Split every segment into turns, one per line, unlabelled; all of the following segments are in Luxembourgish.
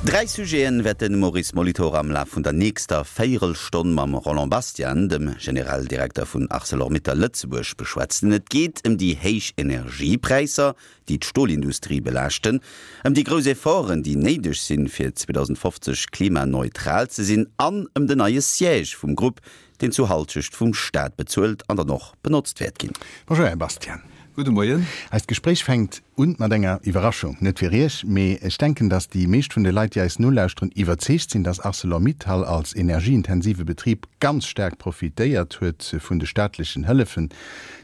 Dräi Sujeten wäert de Maurice Molitor am Laf vun der nächster Véierelstonn mam Roland Bastian, dem Generaldirekter vun Arcelor-Mittal Lëtzebuerg, beschwätzen. Et geet ëm déi héich Energiepräisser, déi d'Stolindustrie belaaschten, ëm déi grouss Efforten, déi néideg sinn, fir 2050 klimaneutral ze sinn an ëm den neie Siège vum Grupp, deen zu Halschecht vum Staat bezuelt an dann och benotzt wäert ginn.
Bonjour Här Bastian.
Gudde Moien.
Eist Gespréich fänkt un mat enger Iwwerraschung. Net fir Iech, mee ech denken, datt déi meescht vun de Leit, déi eis nolauschteren, iwwerzeegt sinn, datt Arcelor-Mittal als energieintensive Betrib ganz staark profitéiert huet vun de staatlechen Hëllefen,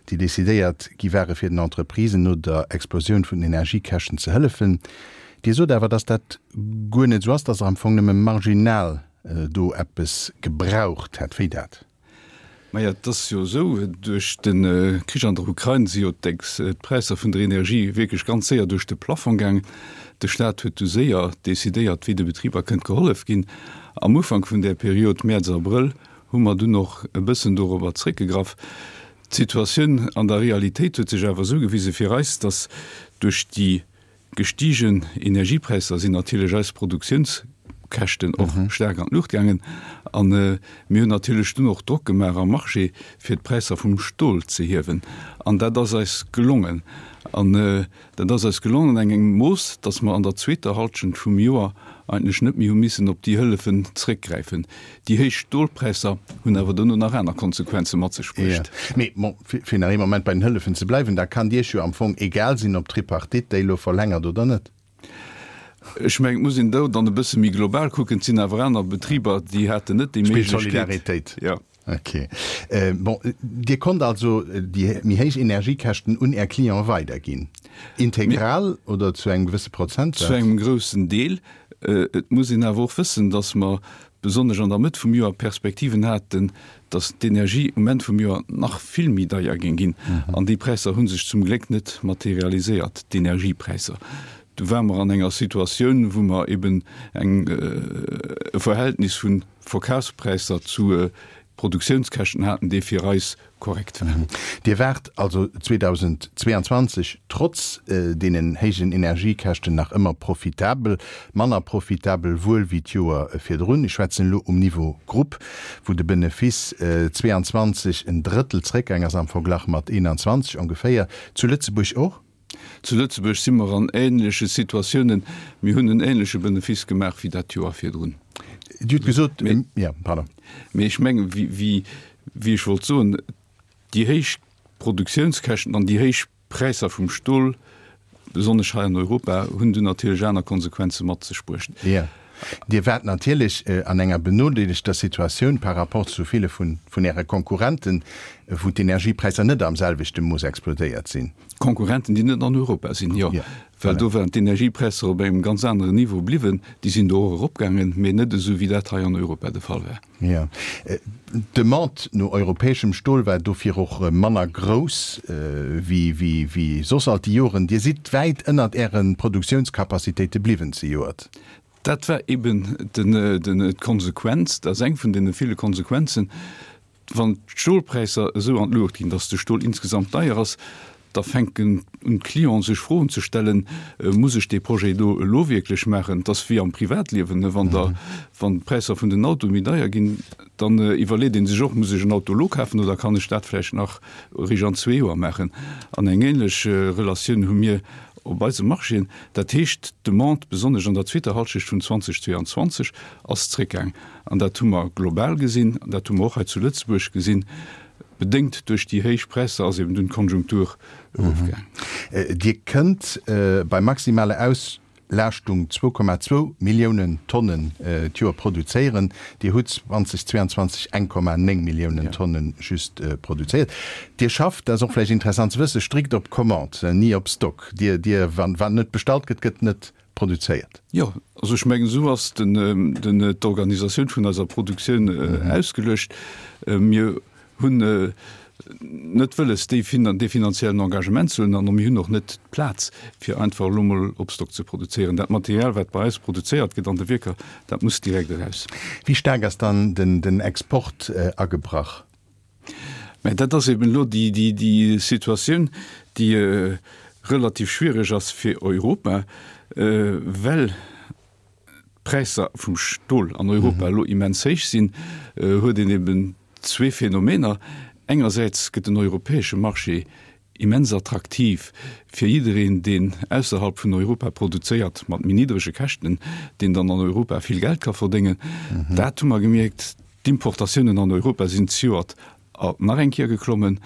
déi decidéiert gi ware fir den Entreprisen no der Explosioun vun den Energiekäschten ze hëllefen. Dir sot awer, datt dat guer net esou ass, datt Der am Fong nëmme marginal do eppes gebraucht hätt. Wéi dat?
Maja, et ass jo esou, duerch de Krich an der Ukrain si jo d'Präisser vun der Energie wierklech ganz séier duerch de Plafong gaangen. De Staat huet du séier decidéiert, wéi de Betriber kënnt gehollef ginn. Am Ufank vun där Period, Mäerz, Abrëll, hu mer dunn och e bëssen dorobber zréckgegraff. D'Situatioun an der Realitéit huet sech awer esou gewise fir eis, datt duerch déi Gestigen Energiepräisser sinn natierlech eis Produktiounskäschten och staark an d'Luucht gaangen. A mir hunn natierlech dunn och Drock gemaach am Marché, fir d'Präisser vum Stol ze hiewen. An dat ass eis gelongen. An dat ass eis gelongen an engem Mooss, datt mer an der zweeter Halschent vum Joer eigentlech net méi hu missen op déi Hëllefen zréckgräifen. Déi héich Stolpräisser hunn awer dono nach aner Konsequenze mat sech bruecht.
Mee bon, fir nach ee Moment bei den Hëllefen ze bleiwen, da kann Iech jo am Fong egal sinn, ob d'Tripartite déi elo verlängert oder net.
Ech mengen, et muss een do dann e bësse méi global kucken. Et sinn awer aner Betriber, déi haten net déi
Méiglechkeet. Spillt Solidaritéit.
Jo.
Ok. Bon, Dir konnt also déi méi héich Energiekäschten un Är Clienten weiderginn. Integral oder zu engem gewësse Prozentsaz?
Zu engem groussen Deel. Et muss een awer och wëssen, dass mer besonnesch an der Mëtt vum Joer Perspektiven haten, dass d'Energie um Enn vum Joer nach vill méi deier géing ginn. An déi Präisser hu sech zum Gléck net materialiséiert, d'Energiepräisser. Du ware mer an enger Situatioun, wou mer eben eng e Verhältnis vu Verkafspräisser zu Produktiounskäschten haten, dee fir eis korrekt war.
Dir waart also 2022 trotz deenen héijen Energiekäschten nach ëmmer profitabel, manner profitabel wuel wéi d'Joer virdrun. Ech schwätzen elo um Niveau Grupp, wou de Benefice 22 en Drëttel zréckgaang ass am Verglach mat 21 ongeféier. Zu Lëtzebuerg och?
Zu Lëtzebuerg si mer an ähnleche Situatiounen. Mir hunn en ähnleche Benefice gemaach wéi dat Joer virdrun.
Dir hutt gesot, jo, pardon.
Mee ech mengen, wéi ech wollt soen, déi héich Produktiounskäschten an déi héich Präisser vum Stol, besonnesch hei an Europa, hunn dunn natierlech aner Konsequenze mat sech bruecht.
Jo. Dir waart natierlech an enger benodeelegter Situatioun par rapport zu ville vun Äre Konkurrenten, wou d'Energiepräisser net am selwechte Mooss explodéiert sinn.
Konkurrenten, déi net an Europa sinn, jo. Well do waren d'Energiepräisser op engem ganz aneren Niveau bliwwen. Déi sinn do och eropgaangen, mee net esou, wéi dat hei an Europa de Fall war.
Jo. D'Demande no europäeschem Stol war dofir och manner grouss wéi soss all déi Joren. Dir sidd wäit ënnert Äre Produktiounscapacitéite bliwwen zejoert.
Dat war eben d'Konsequenz, dat ass eng vun deene ville Konsequenzen, wann d'Stolpräisser esou an d'Luucht ginn, datt de Stol insgesamt deier ass, da fänken un d'Clienten sech Froen ze stellen, Muss ech dee Projet do elo wierklech maachen? Et ass wéi am Privatliewen, wann der, wann d'Präisser vun den Autoe méi deier ginn, dann iwwerleet ee sech och, Muss ech en Auto elo kafen oder kann ech dat vläicht nach eréischt an zwee Joer maachen? An eng ähnlech Relatioun hu mir op eise Marchéen. Dat heescht, d'Demande, besonnesch an der zweeter Halschecht vun 2022, ass zréckgaang. An dat hu mer global gesinn, an dat hu mer och hei zu Lëtzebuerg gesinn. Bedéngt duerch déi héich Präisser ass eben dunn d'Konjunktur erofgaang.
Dir kënnt bei maximaler Auslaaschtung 2,2 Milliounen Tonnen d'Joer produzéieren. Dir hutt 2022 1,9 Milliounen Tonne just produzéiert. Dir schafft, dat ass och vläicht interessant ze wëssen, strikt op Commande, ni op Stock. Dir, Dir, wann, wann net bestallt gëtt, gëtt net produzéiert.
Jo, also ech mengen, esou ass den, den, d'Organisatioun vun eiser Produktioun ausgeluecht. Mir hunn net wëlles, déi finan, dee finanziellen Engagement ze huelen an mir hunn och net d'Plaz, fir einfach elo mol op Stock ze produzéieren. Dat Material, wat bei eis produzéiert gëtt an de Wierker, dat muss direkt eraus.
Wéi staark ass dann den, den Export agebrach?
Mä dat ass eben elo déi Situatioun, déi relativ schwiereg ass fir Europa, well. d'Präisser vum Stol an Europa elo immens héich sinn, huet een eben zwee Phänomener. Engersäits gëtt den europäesche Marché immens attraktiv fir jiddereen, deen ausserhalb vun Europa produzéiert, mat méi niddrege Käschten, deen dann an Europa vill Geld ka verdéngen. Dat hu mer gemierkt. D'Importatiounen an Europa sinn zejoert nach eng Kéier geklommen.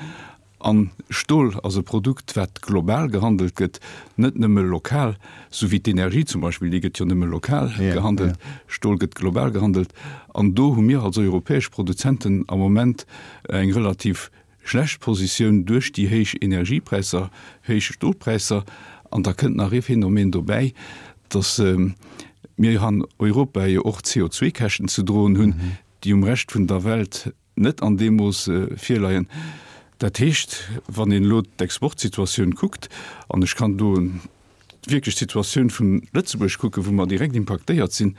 A Stol ass e Produkt, wat global gehandelt gëtt, net nëmme lokal, sou wéi d'Energie zum Beispill, déi gëtt jo nëmme lokal gehandelt. Stol gëtt global gehandelt. An do hu mir als europäesch Produzenten am Moment eng relativ schlecht Positioun duerch déi héich Energiepräisser, héich Stolpräisser. An da kënnt nach ee Phänomen dobäi, datt mir an Europa jo och CO2-Käschten ze droen hunn, déi um Rescht vun der Welt net an deem Mooss virleien. Dat heescht, wann een elo d'Exportsituatioun kuckt, an ech kann do wierklech d'Situatioun vun Lëtzebuerg kucken, wou mer direkt impaktéiert sinn,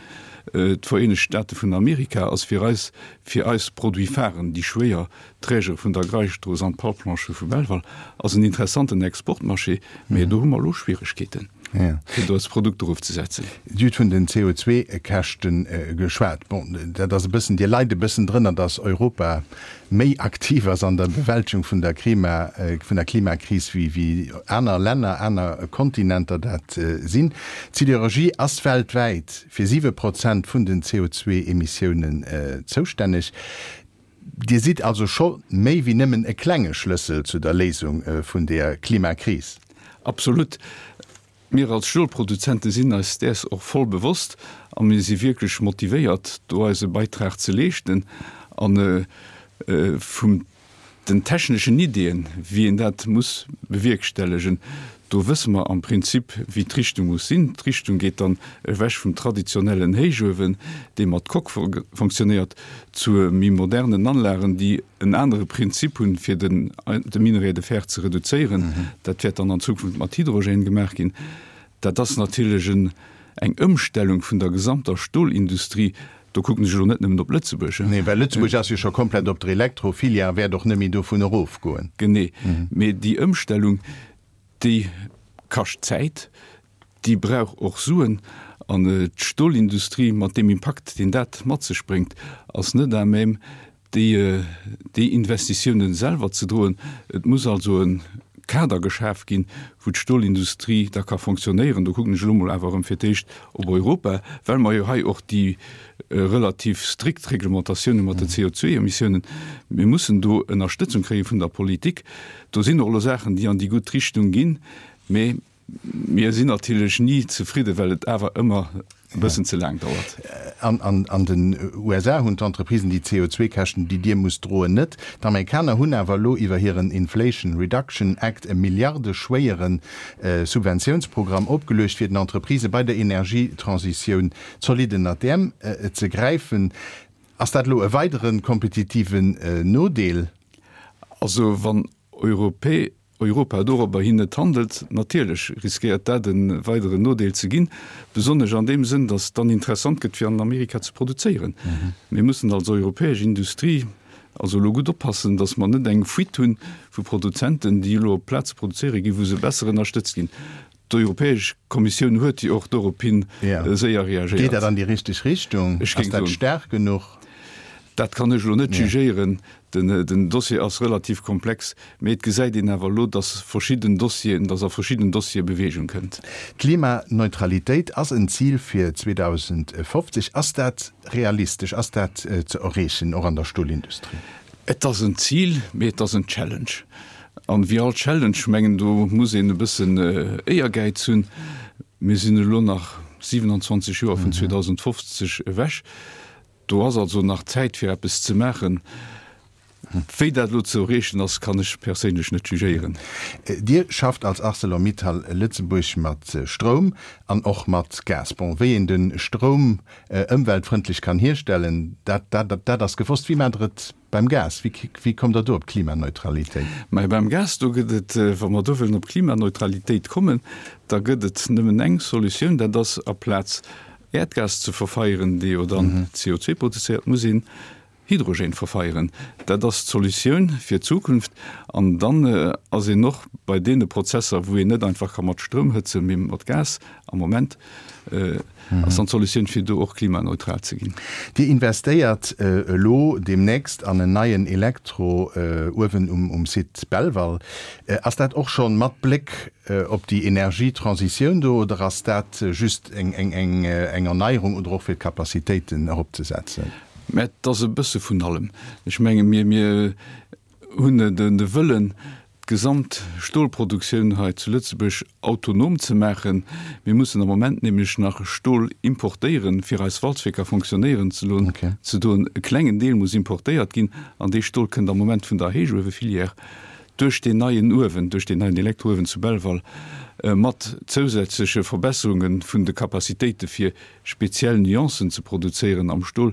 d'Vereenegt Staate vun Amerika ass fir eis, fir eis Produit-pharen, déi schwéier Trägere vun der Greisstrooss an d'Palplanchë vu Belval, ass en interessanten Exportmarché, mä do hu mer elo Schwieregkeeten. Fir do eis Produkter ofzesetzen.
Dir hutt vun den CO2-Käschte geschwat. Bon, dat ass e bëssen, Dir leit e bëssen drënner, datt Europa méi aktiv ass an der Bewältegung vun der Klima, vun der Klimakris wéi wéi aner Länner, aner Kontinenter dat sinn. D'Siderurgie ass weltwäit fir 7 Prozent vun den CO2-Emissiounen zoustänneg. Dir sidd also scho méi wéi nëmmen e klenge Schlëssel zu der Léisung vun der Klimakris.
Absolut. Mir als Stolproduzente sinn eis däers och voll bewosst a mir si wierklech motivéiert, do eise Beitrag ze leeschten. A vum den techneschen Ideeën, wéi een dat muss bewierkstellegen, do wësse mer am Prinzip, wéi d'Richtung muss sinn. D'Richtung geet dann ewech vum traditionellen Héichuewen, dee mat Coque fonctionnéiert, zu méi modernen Anlagen, déi en anere Prinzip hunn, fir den de Minerai de fer ze reduzéieren. Dat wäert dann an Zukunft mat Hydrogène gemaach ginn. Dat ass natierlech en eng Ëmstellung vun der gesamter Stolindustrie. Do kucken ech elo net nëmmen op Lëtzebuerg.
Nee, well Lëtzebuerg ass jo scho komplett op der Elektrofilière a wäert och net méi dovun erofgoen.
Genee. Mee déi Ëmstellung, déi kascht Zäit, Déi brauch och Suen. An d'Stolindustrie, mat deem Impakt, deen dat mat sech bréngt, ass net à même, déi, déi Investitiounen selwer ze droen. Et muss also e Kader geschaf ginn, wou d'Stolindustrie da ka fonctionnéieren. Do kucken ech elo mol awer erëm fir d'éischt op Europa, well mer jo hei och déi relativ strikt Reglementatioun hu mat den CO2-Emissiounen. Mir mussen do Ënnerstëtzung kréie vun der Politik. Do sinn och elo Saachen, déi an déi gutt Richtung ginn, mee Mir sinn natierlech ni zefridden, well et awer ëmmer e bëssen ze laang dauert.
An den USA hunn d'Entreprisen déi CO2-Käschten, déi Dir musst droen, net. D'Amerikaner hunn awer elo iwwer hiren Inflation Reduction Act e milliardeschwéiere Subventiounsprogramm opgeluecht, fir den Entreprisë bei der Energietransitioun zolidd ënnert d'Äerm ze gräifen. Ass dat elo e weidere kompetitiven Nodeel?
Also wann Europä Europa dorobber hin net handelt, natierlech riskéiert dat e weideren Nodeel ze ginn, besonnesch an deem Sënn, datt et dann interessant gëtt fir an Amerika ze produzéieren. Mir mussen als europäesch Industrie also elo gutt oppassen, datt mer net eng Fuite hunn vu Produzenten, déi elo op Plaze produzéiere ginn, wou se besser ënnerstëtzt ginn. D'Europäesch Kommissioun huet jo och dorophin séier reagéiert.
Geet dat an déi richteg Richtung? Ass dat staark genuch?
Dat kann ech elo net jugéieren. Den Dossier ass relativ komplex, mee et gesäit een awer elo, dass verschidden Dossieren, dass a verschidden Dossiere Beweegung kënnt.
D'Klimaneutralitéit ass en Zil fir 2050. Ass dat realistesch? Ass dat ze erreechen, och an der Stolindustrie?
Et ass en Zil, mee et ass en Challenge. An wéi all Challenge, mengen, do muss een e bëssen Éiergäiz hunn. Mir sinn elo nach 27 Joer vun 2050 ewech. Do ass also nach Zäit fir eppes ze maachen. Wéi dat elo ze erreechen ass, kann ech perséinlech net jugéieren.
Dir schafft als Arcelor-Mittal Lëtzebuerg mat Stroum an och mat Gas. Bon, wéi een de Stroum ëmweltfrëndlech kann hierstellen, dat, dat ass gewosst. Wéi maacht Der et Beim Gas, wéi kommt Der do op d'Klimaneutralitéit?
Mä beim Gas, do gëtt et, wa mer do wëllen op Klimaneutralitéit kommen, da gëtt et nëmmen eng Solutioun, dat ass aplaz Äerdgas ze verfeieren, dee jo dann CO2 produzéiert, muss een. Hydrogène verfeieren. Dat ass d'Solutioun fir d'Zukunft. An dann ass een och bei deene Prozesser, wou een net einfach ka mat Stroum hëtzen, mee mat Gas am Moment, ass dann d'Solutioun, fir do och klimaneutral ze ginn.
Dir investéiert elo deemnächst an en neien Elektrouewen um Site Belval. Ass dat och scho mat Bléck op déi Energietransitioun do oder ass dat just eng Erneierung oder och fir d'Capacitéiten eropzesetzen?
Mä et ass e bësse vun allem. Ech menge mir, mir hunn de Wëllen, d'gesamt Stolproduktioun hei zu Lëtzebuerg autonom ze maachen. Mir mussen am Moment nämlech nach Stol importéieren, fir eis Walzwierker fonctionnéieren ze loen, ze doen. E klengen Deel muss importéiert ginn an dee Stol kënnt am Moment vun der Héichuewefilière duerch deen neien Uewen, duerch deen neien Elektrouewen zu Belval, mat zousätzleche Verbesserunge vun de Capacitéite fir speziell Nuancen ze produzéieren am Stol,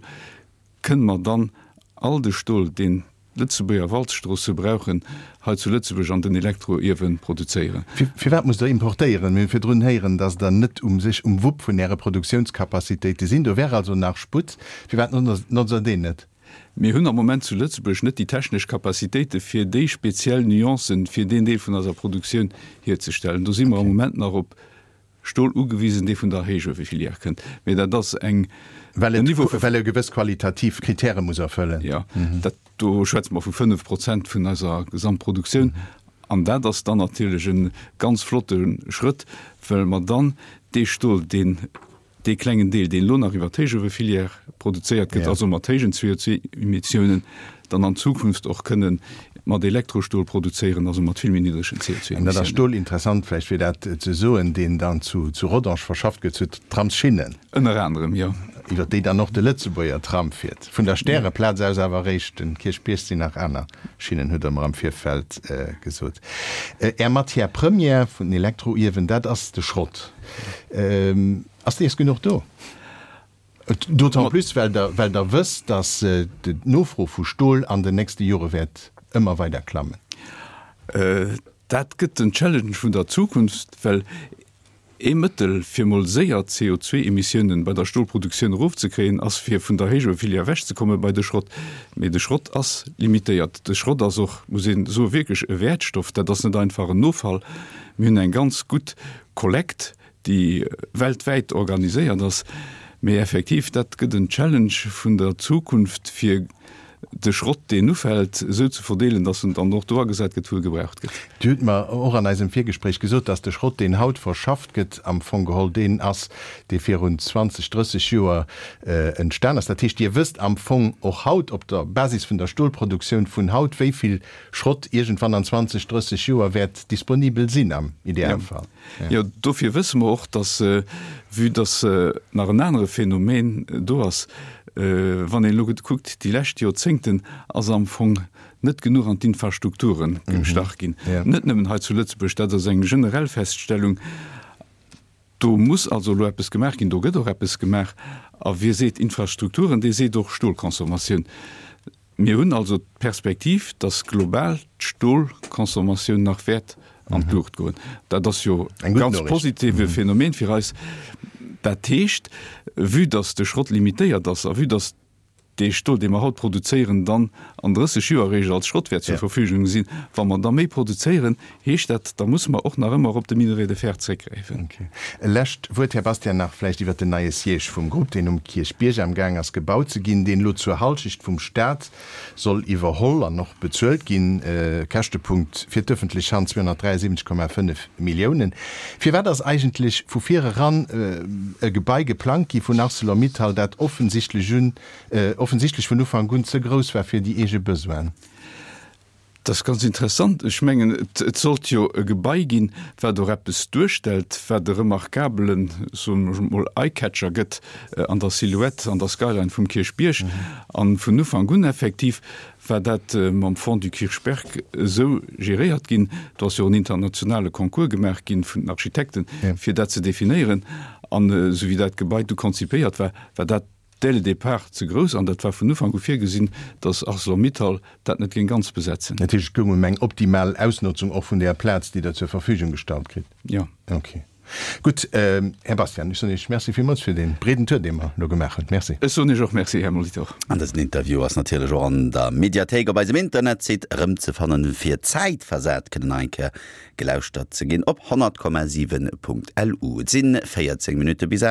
kënne mer dann all de Stol, deen d'Lëtzebuerger Walzstroosse brauchen, hei zu Lëtzebuerg an den Elektroiewe produzéieren.
Firwat musst Der importéieren? Mir hu virdrun héieren, datt Der net um sech um Wupp vun Äre Produktiounscapacitéite sinn. Do wär also nach Sputt. Firwat notzt Der deen net?
Mir hunn am Moment zu Lëtzebuerg net déi technesch Capacitéite fir déi speziell Nuancen fir deen Deel vun eiser Produktioun hierzestellen. Do si mer am Moment nach op Stol ugewisen, dee vun der Héichuewefilière kënnt. Mee dat ass eng,
Well en Niveau vu. Well e gewëss qualitativ Kritäre muss erfëllen.
Jo, dat, do schwätze mer vu 5 Prozent vun eiser Gesamtproduktioun. An dat ass dann natierlech e ganz flotte Schrëtt, well mer dann dee Stol, deen Dee klengen Deel, deen elo nach iwwer d'Héichuewefilière produzéiert gëtt, also mat héijen CO2-Emissiounen, dann an Zukunft och kënne mat Elektrostol produzéieren, also mat vill méi niddregen
CO2-Emissiounen. An dat ass Stol, interessant vläicht fir dat ze soen, deen dann zu Rodange verschafft gëtt, zu Tramsschinnen.
Ënner anerem, jo.
Iwwer déi dann och de Lëtzebuerger Tram fiert. Vun der Stäreplaz aus awer eréischt. Den Kierchbierg sinn nach aner Schinnen, hutt Der mer am Virfeld gesot. Är Matière première vun den Elektroiewen, dat ass de Schrott. Ass dees genuch do? D'autant plus, well Der, well Der wësst, datt d'Nofro vu Stol an den nächste Jore wäert ëmmer weider klammen.
Dat gëtt den Challenge vun der Zukunft, well ee Mëttel, fir mol séier d'CO2-Emissiounen bei der Stolproduktioun erofzekréien, ass fir vun der Héichuefilière ewechzekomme bei de Schrott. Mee de Schrott ass limitéiert. De Schrott ass och, muss een soen, wierklech e Wäertstoff. Dat ass net einfach en Offall. Mir hunn eng ganz gutt Kollekt, déi weltwäit organiséiert ass. Mee effektiv, dat gëtt en Challenge vun der Zukunft, fir de Schrott, deen ufält, esou ze verdeelen, dass en dann och do agesat gëtt, wou e gebraucht gëtt.
Dir hutt mer och an eisem Virgespréich gesot, dass de Schrott, deen haut verschafft gëtt, am Fong geholl deen ass, dee virun 20, 30 Joer entstan ass. Dat heescht, Dir wësst am Fong och haut op der Basis vun der Stolproduktioun vun haut, wéi vill Schrott iergendwann an 20, 30 Joer wäert disponibel sinn am Idealfall.
Jo, dofir wësse mer och, dass, vue dass nach en anere Phänomen do ass, wann een elo kuckt, déi lescht Joerzéngten ass am Fong net genuch an d'Infrastrukture gestach ginn, net nëmmen hei zu Lëtzebuerg, dat ass eng generell Feststellung. Do muss also elo eppes gemaach ginn, do gëtt och eppes gemaach. A wie seet Infrastrukturen, dee seet och Stolconsommatioun. Mir hunn also d'Perspektiv, dass global d'Stolconsommatioun nach wäert an d'Luucht goen. Dat ass jo e ganz positive Phänomen fir eis. Dat heescht, vue dass de Schrott limitéiert ass a vue dass dee Stol, dee mer haut produzéieren, dann an 30 Joer eréischt als Schrott wäert zur Verfügung sinn, wa mer da méi produzéieren, heescht dat, da musse mer och nach ëmmer op de Minerai de fer zréckgräifen.
E lescht Wuert, Här Bastian, nach vläicht iwwert den neie Siège vum Grupp, deen um Kierchbierg amgaang ass gebaut ze ginn, deen elo zur Halschecht vum Stat soll iwwerholl an och bezuelt ginn. Käschtepunkt fir d'öffentlech Hand 273,5 Milliounen. Firwat ass eigentlech vu vir eran e Gebai geplangt gi vun Arcelor-Mittal, dat offensichtlech un offensichtlech vun Ufank un ze grouss war fir déi eege Besoinen?
Dat ass ganz interessant. Ech mengen, et sollt jo e Gebai ginn, wat och eppes duerstellt, wat e remarkabelen, soen ech emol, Eye-Catcher gëtt an der Silhouette, an der Skyline vum Kierchbierg. A vun Ufank un effektiv war dat mam Fonds du Kirchberg esou geréiert ginn. Do ass jo och en internationale Concours gemaach ginn vun den Architekten, fir dat ze definéieren. An esou wéi dat Gebai du konzipéiert war, war dat dès le départ ze grouss an dat war vun Ufank u virgesinn, datt Arcelor-Mittal dat net géing ganz besetzen.
Dat heescht, et goung ëm eng optimal Ausnotzung och vun där Plaz, déi Der zur Verfügung gestallt kritt?
Jo.
Okay. Gutt, Här Bastian, ech soen Iech Merci villmools fir dee breeden Tour, dee mer elo gemaach hunn. Merci.
Ech soen Iech och Merci, Här Molitor.
An dësen Interview ass natierlech och an der Mediathéik op eisem Internetsite erëmzefannen, fir zäitversat kënnen nach eng Kéier gelauschtert ze ginn op 100,7.lu. Et sinn 14 Minutte bis 8.